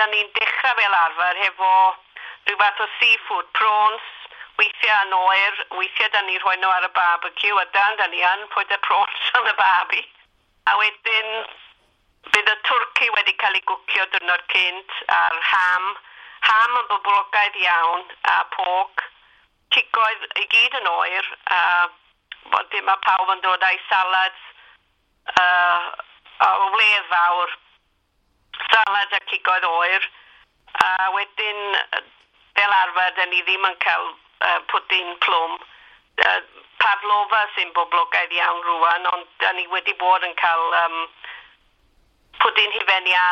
da ni'n dechrau fel arfer hefo rhyw fath o seafood, prawns, weithiau yn oer, weithiau da ni'n rhoi nhw ar y barbecue, a dan da ni yn put y prawns on y barbie. A wedyn bydd y twrci wedi cael ei gwcio diwrnod cynt, a'r ham. Ham yn boblogaidd iawn, a pork. Cigoedd i gyd yn oer, a wedyn mae pawb yn dod â'i salads o wledd fawr. Salad a cigoedd oer. A wedyn, fel arfer, da ni ddim yn cael pwdin plwm. Pavlova sy'n boblogaidd iawn rwan, ond da ni wedi bod yn cael pwdin hufen iâ.